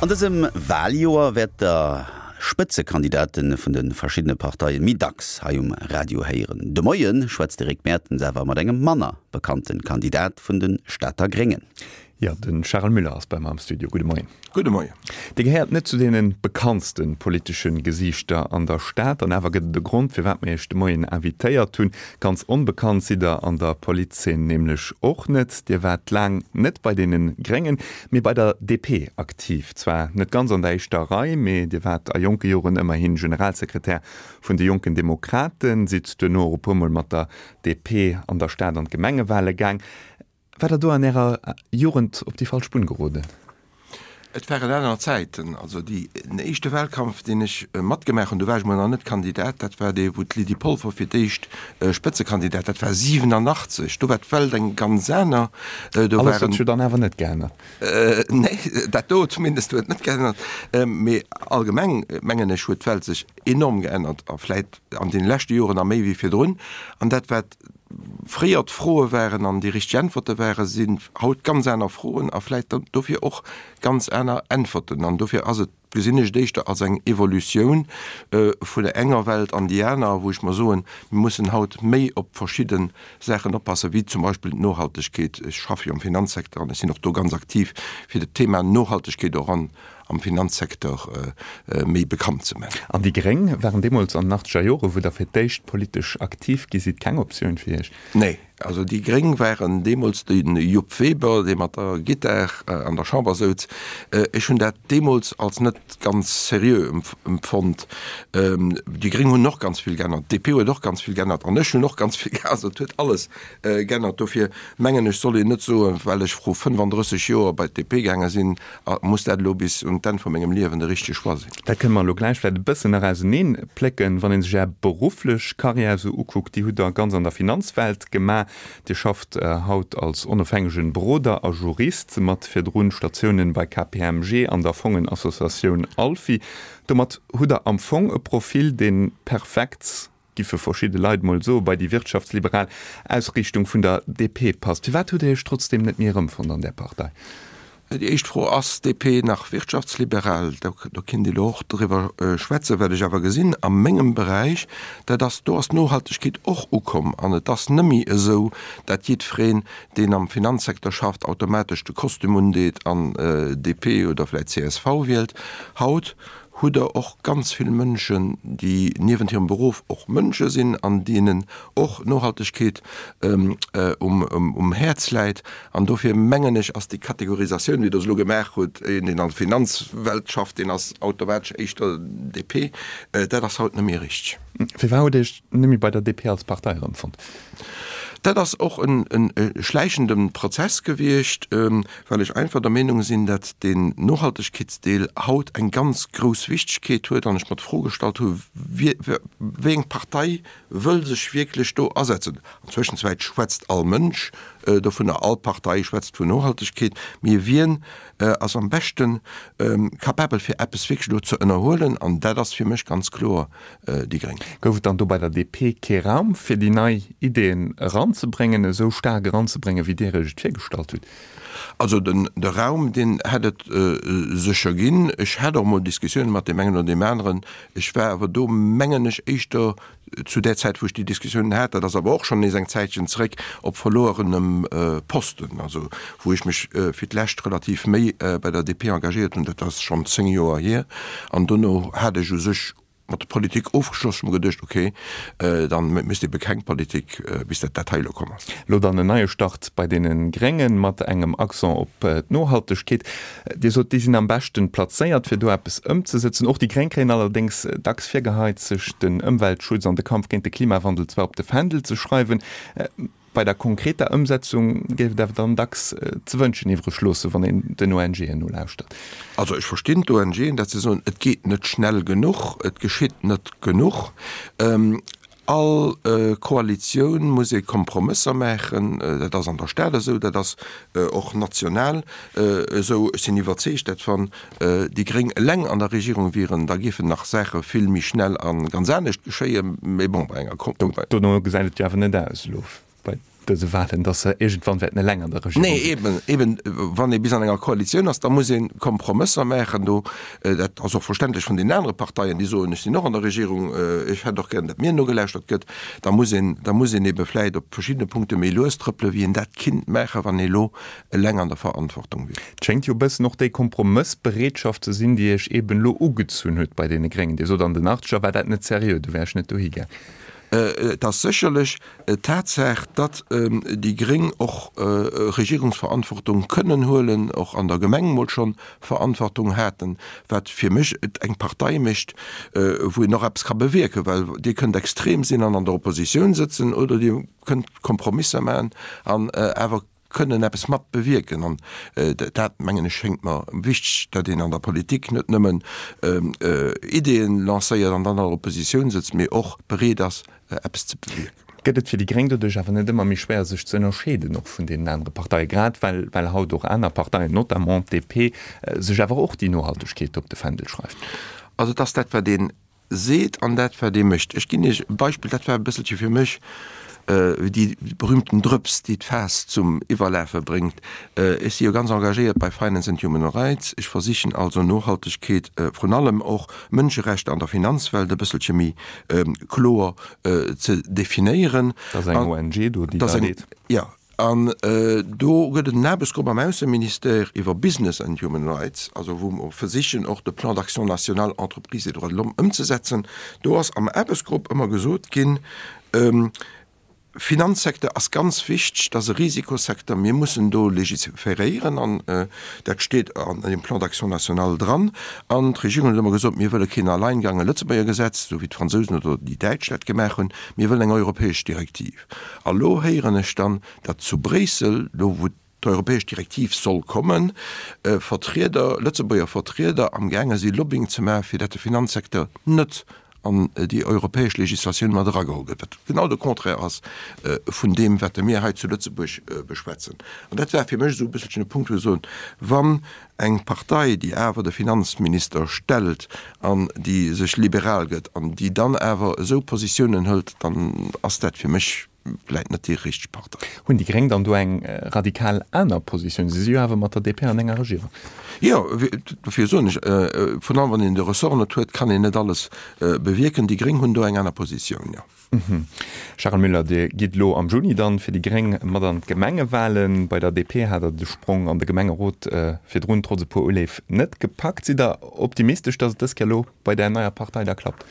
An dësem Waljoer wäert der Spëtzekandidate vun de verschiddene Parteien méi dacks hei um Radio héieren. De Moie schwätzt de Rick Mertens awer mat engem manner bekannte Kandidat vun de Stater Gréngen. Jo, de Charel Müller ass bei mer am Studio. Gudde Moien. Gudde Moien. Dir gehéiert net zu deene bekanntste politesche Gesiichter an der Stad, an awer gëtt et e Grond, firwat mir Iech de Moien invitéiert hunn. Ganz onbekannt sidd Der an der Politzeen nämlech och net. Dir waart laang net bei deene Gréngen, mee bei der DP aktiv. Zwar net ganz an der éischter Rei, mee Dir waart a jonke Joren ëmmerhi Generalsekretär vun de Jonken Demokraten, sidd duerno och e puer Mol mat der DP an der Stad an d'Gemengewale gaang. War der do an Ärer Jugend op déi falsch Bunn geroden? Et waren aner Zäiten. Also déi, den éischte Wahlkampf, deen ech matgemaach hunn, do war ech mol nach net Kandidat, dat war dee wou d'Lydie Polfer fir d'éischt Spëtzekandidat, dat war 87, do war d'Welt eng ganz aner. Do Alles huet sech jo dann awer net geännert. Nee, dat do zumindest huet net geännert. Mee allgemeng mengen ech huet d'Welt sech enorm geännert a vläit an deene leschte Joren nach méi wéi virdrun. An dat wat fréier d'Froe waren an déi richteg Äntwerte waren, sinn haut ganz aner Froen a vläicht dofir och ganz aner Äntwerten. An dofir ass et, gesinn ech et éischter als eng Evolutioun vun der enger Welt an déi aner, wou ech mer soen, mir mussen haut méi op verschidde Saachen oppassen, wéi zum Beispill d'Nohaltegkeet. Ech schaffe jo am Finanzsecteur an ech sinn och do ganz aktiv, fir dat Thema Nohaltegkeet och an am Finanzsecteur méi bekannt ze maachen. An déi Gréng waren deemools an den achtzeger Jore, wou Der fir d'éischt politesch aktiv gi sidd, keng Optioun fir Iech? Nee, also déi Gréng waren deemools de Jupp Weber, dee mat der Gittar an der Chamber souz. Ech hunn dat deemools als net ganz seriö empfonnt. Déi Gréng hunn och ganz vill geännert, d'DP huet och ganz vill geännert an ech hunn och ganz vill geännert. Also et huet alles geännert. Dofir mengen ech, soll een net soen, well ech vru 35 Joer bei d'DP gaange sinn, A muss dat elo bis un d'Enn vu mengem Liewen de richtege Choix sinn? Dat kënne mer elo gläich vläicht e bëssen nach auseneen plécken. Wann ee sech Är berufflech Karriär esou ukuckt, déi hutt Der ganz an der Finanzwelt gemaach. Dir schafft haut als onofhängegen Beroder a Jurist, mat virdrun Statiounen bei KPMG an der Fongenassociatioun ALFI. Domat hutt Der am Fong e Profil, dee perfekt giffe verschidde Leit mol soen, bei déi wirtschaftsliberal Ausriichtung vun der DP passt. Firwat hutt Dir Iech trotzdem net méi erëmfonnt an där Partei? Déi éischt Fro, Ass d'DP nach wirtschaftsliberal? Do kinnt ee lo och driwwer schwätzen. Wat ech awer gesinn a mengem Beräich, dat ass, do ass d'Nohaltegkeet och ukomm an et ass nëmmi esou, dat jiddwereen, deen am Finanzsecteur schafft, automatesch de Kostüm undeet an DP oder vläicht csv wielt. Haut hutt Der och ganz vill Mënschen, déi niewent hirem Beruff och Mënsche sinn an deenen och Nohaltegkeet um Häerz läit. An dofir mengen ech, ass déi Kategorisatioun, wéi Der se elo gemaach hutt, een, deen an der Finanzwelt schafft, deen ass automatesch éischter DP, dat ass haut net méi richteg. Firwat hutt Dir Iech net méi bei der DP als Partei erëmfonnt? Dat ass och e schläichende Prozess gewiescht. well ech einfach der Meenung sinn, dat deen Nohaltegkeetsdeel haut eng ganz grouss Wichtigkeet huet an ech mer d'Fro gestallt hu wéi eng Partei wëll sech wierklech do asetzen. An Zwëschenzäit schwätzt all Mënsch dovunner, all Partei schwätzt vun Nohaltegkeet, mee wien ass am beschte capabel fir eppes wierklech do ze ënnerhuelen? An dat ass fir mech ganz kloer déi Gréng. Gouf et dann do bei der DP kee Raum fir déi nei Ideeën eranzebréngen, esou staark eranzebréngen, wéi Dir Iech et virgestallt hutt? Also den de Raum, deen hätt et sécher ginn. Ech hat och emol Diskussiounen mat deem engen oder deem aneren. Ech war awer do, mengen ech, éischter zu där Zäit, wou ech déi Diskussiounen hat, dat ass awer och schonn nees eng Zäitchen zréck, op verlorenem Posten. Also wou ech mech fir d'lescht relativ méi bei der DP engagéiert hunn, dat ass schonn 10 Joer hier. An dono hat ech u sech mat der Politik ofgeschloss. Ech hu mer geduecht, ok, dann méchs de ebe keng Politik, bis dat dat hei elo komm ass. Elo dann en neie Start bei deene Gréngen, mat engem Accent op d'Nohaltegkeet. Dir sot, déi sinn am beschten plazéiert, fir do eppes ëmzesëtzen. Och déi Gréng kréien allerdéngs dacks virgeheit, sech den Ëmweltschutz an de Kampf géint de Klimawandel zwar op de Fändel ze schreiwen, Bei der konkreter Ëmsetzung géif et awer dann dacks ze wënschen iwwreg loossen, wann een den ONGen nolauschtert. Also ech verstinn d'ONGen, datt se soen, et geet net schnell genuch, et geschitt net genuch. All Koalitioun muss ee Kompromësser maachen, dat ass an der Stad esou, dat ass och national esou. Ech sinn iwwerzeegt, datt wann déi Gréng eleng an der Regierung wieren, da géifen nach Saache vill méi schnell a ganz anescht geschéien. Mee bon, bei enger. Dono gesäit et jo awer net aus elo bei. dëse Wahlen, datt se iergendwann wäerten eleng an der Regierung sinn. Nee, eben, eben, wann ee bis an enger Koalitioun ass, da muss ee Kompromësser maachen. Do, dat ass och verständlech vun deenen anere Parteien, déi soen, ech sinn och an der Regierung, ech hätt och gären, datt mir nogelauschtert gëtt. Da muss een, da muss een ebe vläicht op verschiddene Punkte méi lues trëppelen, wéi een dat kinnt maachen, wann ee elo eleng an der Verantwortung wier. Et schéngt jo e bëssen och déi Kompromëssbereetschaft ze sinn, déi Iech eben elo ugezunn huet bei deene Gréngen. Dir sot, an den Achtzeger war dat net seriö, do wär ech net dohi gaang. Et ass sécherlech d'Tatsaach, datt déi Gréng och Regierungsverantwortung kënnen huelen, och an der Gemeng mol schonn Verantwortung haten, wat fir mech et eng Partei mécht, wou een och eppes ka bewierken, well Dir kënnt extrem sinn an an der Oppositioun sëtzen oder Dir kënnt Kompromisser maachen an awer kënnen eppes mat bewierken. An dat, mengen ech, schéngt mer wichteg, datt een an der Politik net nëmmen Ideeën lancéiert an dann an der Oppositioun sëtzt, mee och bereet ass, eppes ze bewierken. Gëtt et fir déi Gréng doduerch awer net ëmmer méi schwéier, sech ze ënnerscheeden och vun deenen anere Parteien, grad well well haut och aner Parteien, notamment d'DP, sech awer och déi Nohaltegkeet op de Fändel schreift? Also et ass dat, wat een seet an dat wat ee mécht. Ech ginn Iech e Beispill, dat war e bësselche fir mech déi berühmten Drëps, déi d'Faass zum Iwwerlafe bréngt. Ech si jo ganz engagéiert bei Finance and Human Rights. Ech versichen also Nohaltegkeet, vrun allem och Mënscherechter an der Finanzwelt e bësselche méi kloer ze definéieren. Dat ass eng ONG do, déi dat leet. Jo. An do gëtt et en Aarbechtsgrupp am Ausseministère iwwer Business and Human Rights, also wou mer versichen och de Plan d'action national Entreprises et droits de l'homme ëmzesetzen. Do ass am Aarbechtsgrupp ëmmer gesot ginn, Finanzsecteur ass ganz wichteg, dat ass e Risikosecteur, mir mussen do legiferéieren an dat steet an deem Plan d'action national dran. An d'Regierung huet ëmmer gesot, mir wëlle keen Alleingang, e Lëtzebuerger Gesetz, esou wéi d'Fransousen oder déi Däitsch dat gemaach hunn, mir wëllen eng europäesch Direktiv. A lo héieren ech dann, datt zu Bréissel, do wou d'europäesch Direktiv soll kommen, Vertrieder, Lëtzebuerger Vertrieder amgaange si Lobbying ze maachen, fir datt de Finanzsecteur net an déi europäesch Legislatioun mat erageholl gëtt, wat genau de Contraire ass vun deem, wat mir hei zu Lëtzebuerg beschwätzen. An dat war fir mech esou e bësselchen e Punkt, wou ech soen, wann eng Partei, déi awer de Finanzminister stellt an déi sech liberal gëtt an déi dann awer esou Positiounen hëlt, dann ass dat fir mech vläit net déi richteg Partei. Hunn déi Gréng dann do eng radikal aner Positioun? Si si jo awer mat der DP an enger Regierung. Jo, dofir soen ech, virun allem wann een de Ressort net huet, kann een net alles bewierken. Déi Gréng hunn do eng aner Positioun, jo. Charel Müller, Dir gitt elo am Juni dann fir déi Gréng mat an d'Gemengewalen. Bei der DP hat Der de Sprong an de Gemengerot virdrun trotz e puer Uleef net gepackt. Sidd Der optimistesch, datt et dës Kéier elo bei där neier Partei da klappt?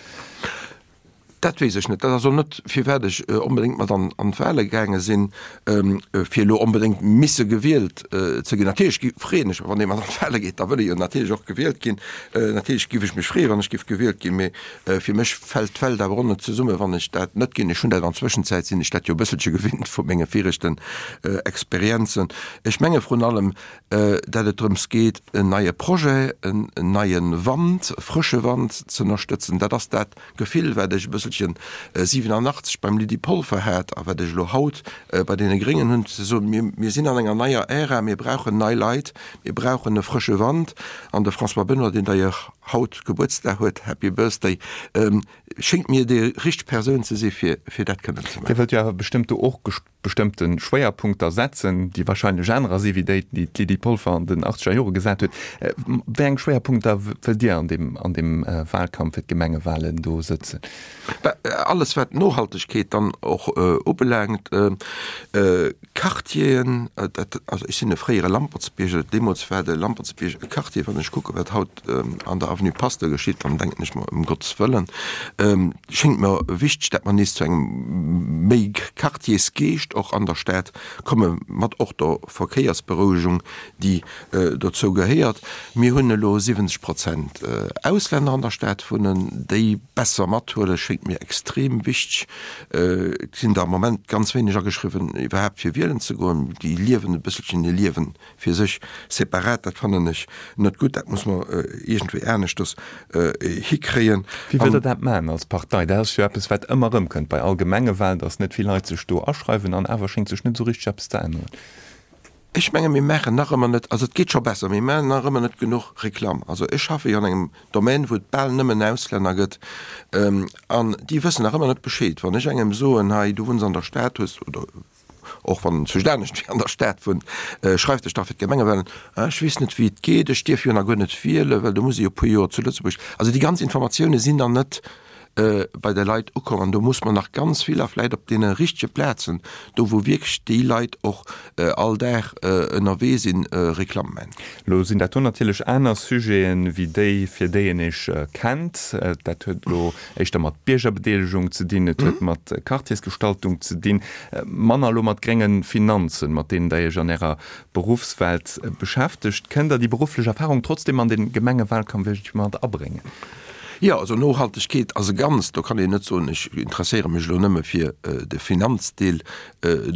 Dat weess ech net. Dat ass och net, firwat ech onbedéngt mat an d'Wale gaange sinn, fir elo onbedéngt misse gewielt ze ginn. Natierlech freeën ech mech, wann ee mat an d'Wale geet, da wëll ee jo natierlech och gewielt ginn. Natierlech giff ech mech freeën, wann ech giff gewielt ginn, mee Fir mech fält d'Welt awer och net zesummen, wann ech dat net ginn. Ech hunn dat an Zwëschenzäit, sinn ech dat jo e bësselche gewinnt vu menge viregten Experienzen. Ech menge vrun allem, dat et drëms geet, en neie Projet, en neie Wand, e frësche Wand ze ënnerstëtzen. Dat ass dat Gefill, wat ech e bësselchen 87 beim Lydie Polfer hat a wat ech elo haut bei deene Gréngen hunn, ze soen, mir, mir sinn an enger neier Ära, mir brauchen nei Leit, mir brauchen e frësche Wand. An de François Benoy, deen d'ailleurs haut Gebuertsdag huet, Happy Birthday, schéngt mir déi richteg Persoun ze si fir fir dat kënnen ze maachen. Dir wëllt jo awer bestëmmt do och bestëmmte Schwéierpunkter setzen, déi wahrscheinlech anerer si wéi déi, déi d'Lydie Polfer an den achtzeger Jore gesat huet. Wéi eng Schwéierpunkter wëllt Dir an deem an deem Wahlkampf fir d'Gemengewahlen do sëtzen? Bah, alles wat d'Nohaltegkeet dann och ubelaangt, Quartieren, dat, also ech sinn e fréiere Lampertsbierger, deemools war de Lampertsbierg e Quartier, wann ech kucke wat haut an der Avenue Pasteur geschitt, dann denken ech mer, ëm Gottes Wëllen, schéngt mer wichteg, dat mer nees zu engem méi Quartiersgeescht och an der Stad komme mat och der Verkéiersberouegung, déi dozou gehéiert. Mir hunn elo 70 Prozent Auslänner an der Stad wunnen, déi besser mathuelen, schéngt mir extrem wichteg. Et sinn der am Moment ganz wéineg ageschriwwen, iwwerhaapt fir wielen ze goen. Déi liewen e bësselchen hir Liewen fir sech separat. Dat fannen ech net gutt. Dat muss mer iergendwéi aneschters hikréien. Wéi wëllt Der dat maachen als Partei? Dat ass jo eppes, wat ëmmer erëmkënnt bei all Gemengewahlen, datt net vill Leit sech do aschreiwen an awer schéngt sech net esou richteg eppes ze änneren. Ech menge mir maachen nach ëmmer net, also et geet scho besser, mee mir maachen nach ëmmer net genuch Reklamm. Also ech schaffe jo an engem Domaine, wou et bal nëmmen Auslänner gëtt, an déi wëssen nach ëmmer net Bescheed. Wann ech engem soen, hei du wunns an der Stad, hues oder. och wann en zwëscht anescht wéi an der Stad wunnt, schreif dech da fir d'Gemengewahlen an, ech weess net wéi et geet, ech dierf jo nach guer net wielen, well do muss ee jo e puer Joer zu Lëtzebuerg, also déi ganz Informatioune sinn nach net bei de Leit ukomm an do muss mer nach ganz vill a vläit op deene richtege Plazen, do wou wierklech déi Leit och all Dag ënnerwee sinn, Reklamm man. Elo sinn dat do natierlech aner Sujeten, wéi déi, fir déi een Iech kennt. Dat huet elo éischter mat Biergerbedeelegung ze dinn, et huet mat Quartiersgestaltung ze dinn, manner elo mat grénge Finanzen, mat deenen Der Iech an Ärer Beruffswelt beschäftegt. Kënnt Der déi berufflech Erfahrung trotzdem an de Gemengewalkampf iergendwéi mat abréngen? Jo, also Nohaltegkeet ass e Ganzt. Do kann een net soen, ech interesséiere mech elo nëmme fir de Finanzdeel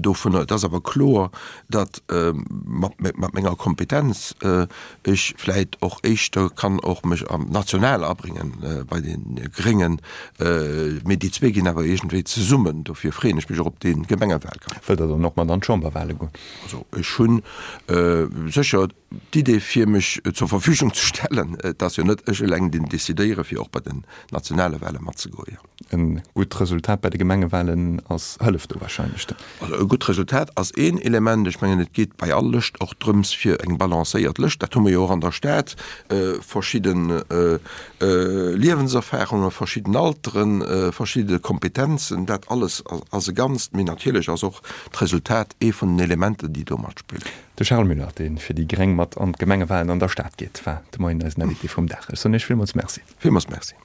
dovunner. Et ass awer kloer, datt mat menger Kompetenz ech vläit och éischter kann och mech am national abrénge bei de Gréngen. Mee déi zwee ginn awer iergendwéi zesummen. Dofir freeën ech mech och op dee Gemengewalkampf. Wëllt Der dann och mat an d'Chamberwale goen? Also ech hu sécher D'Idee fir mech zur Verfügung ze stellen, et ass jo net ech eleng deen decidéiere fir och bei den nationale Wahle matzegoen. E gutt Resultat bei de Gemengewahlen ass hëlleft do wahrscheinlech dann. Also e gutt Resultat ass een Element. Ech mengen et geet bei all Lëscht och drëms fir eng balancéiert Lëscht, dat hu mer jo och an der Stad, verschidde Liewenserfahrungen, verschidden Alteren, verschidde Kompetenzen, dat alles ass e Ganzt. Mee natierlech ass och d'Resultat ee vun den Elementer déi do matspillen. De Charles Müller, dee fir déi gréng mat an d'Gemengewalen an der Stad geet, war de Moien eisen Invité vum Dag. Ech soen Iech villmools Merci. Villmools Merci.